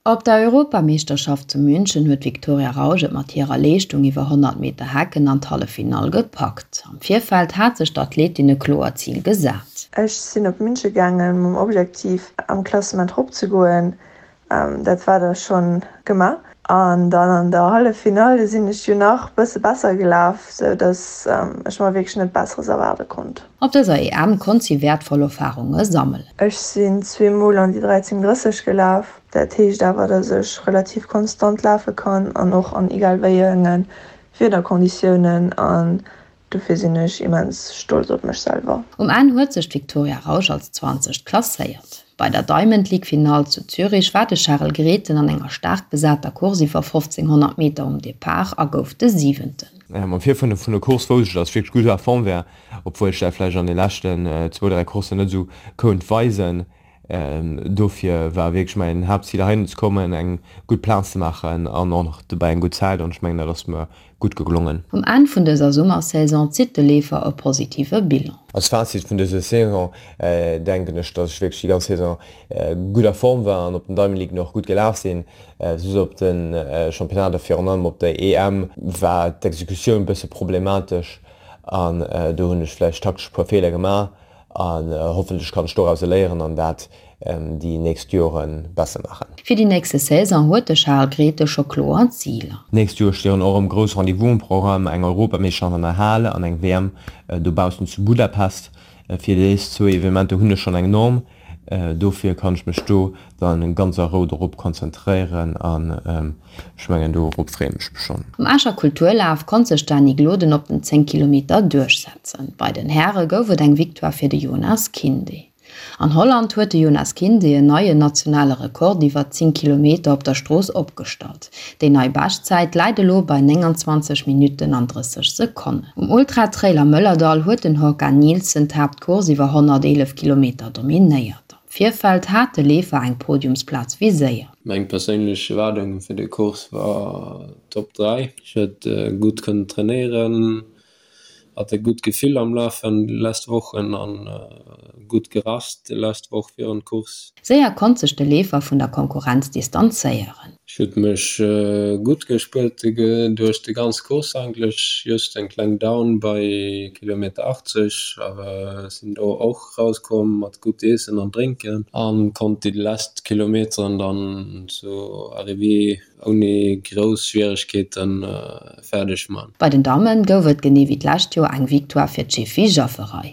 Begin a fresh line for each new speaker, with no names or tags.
Op der Europameeschterschaft zu München huet d'Victoria Rausch et mat hirer Leeschtung iwwer 100 Meter Hecken an d'Halleffinall gepackt. Am Virfeld hat sech d'Athletin e kloert Zil gesat.
Ech sinn op München gaangen mam Objektiv am Klassement rop ze goen. Dat war da schonn gemaach. An dann an der Halleffinall sinn ech jo nach bësse besser gelaf, sou dass ech mer wierklech net Besseres erwaarde konnt.
Op dëser EM konnt si wäertvoll Erfarunge sammelen.
Ech sinn zweemol an déi 13,30 gelaf. Dat heescht awer, dass ech relativ konstant lafe kann an och an egal wéi enge Wiederkonditiounen. An dofir sinn ech immens stolz op mech selwer.
Um Enn huet sech d'Victoria Rausch als Zwanzegt klasséiert. Bei der Diamond League Finall zu Zürich war de Charel Grethen an enger staark besater Course iwwer 1500 Meter um Depart a gouf de Siwenten.
Am Virfeld vun der Course wousst ech, dass ech wierklech gutt a Form war, obwuel ech dat vläicht an de leschten zwou, dräi Courssen net esou kount weisen. Dofir war wierklech mäin Haaptzil heihinner ze kommen, eng gutt Plaz ze maachen an och nach dobäi eng gutt Zäit an ech mengen dat ass mer gutt geglongen.
Um Enn vun dëser Summersaison zitt de Leefer e positive Bilan.
Als Fazit vun dëser Saison denken ech, dass ech wierklech déi ganz Saison gutt a Form war an op den Diamond League och gutt gelaf sinn. Soss op de Championnater, virun allem op der EM, war d'Exekutioun bësse problematesch an do hunn ech vläicht taktesch e puer Feeler gemaach. An hoffentlech kann ech dorauser léieren an dat déi nächst Jore besser maachen.
Fir déi nächste Saison huet de Charles Grethe scho kloer Ziler.
D'nächst Joer stinn och erëm grouss Rendez-vous um Programm, eng Europameeschterschaft an der Hal an eng WM dobaussen zu Budapest. Fir dés zwou Evenementer hunn ech schonn eng Norm, dofir kann ech mech do dann ganz a Rou dorop konzentréieren an ech mengen dorop freeë mech schonn.
Um Escher Kulturlaf konnt sech d'Dany Gloden op den 10 Kilometer duerchsetzen. Bei den Häre gouf et eng Victoire fir de Jonas Kinde. An Holland huet de Jonas Kinde en neien nationale Rekord iwwer 10 Kilometer op der Strooss opgestallt. Déi nei Beschtzäit läit elo bei 29 Minutten an 30 Sekonnen. Um Ultra-Trail am Mëllerdall huet den Håkan Nilsson d'Haaptcourse iwwer 111 Kilometer dominéiert. Am Virfeld hat de Leefer eng Podiumsplaz viséiert.
Meng perséinlech Erwaardung fir de Course war Top 3. Ech huet gutt kënnen trainéieren, hat e gutt Gefill am Lafen déi lescht Wochen an gutt gerast déi lescht Woch virun d'Course.
Séier konnt sech de Leefer vun der Konkurrenz distanzéieren.
Ech huet mech gutt gespuert duerch de ganz Course eigentlech, just eng kleng Down bei Kilometer 80, awer sinn do och rauskomm mat gutt Iessen an Drénken an konnt déi lescht Kilometeren dann zu Arrivée ouni grouss Schwieregkeeten fäerdeg man.
Bei den Dammen gouf et genee wéi d'lescht Joer eng Victoire fir d'Shifi Jafferaj.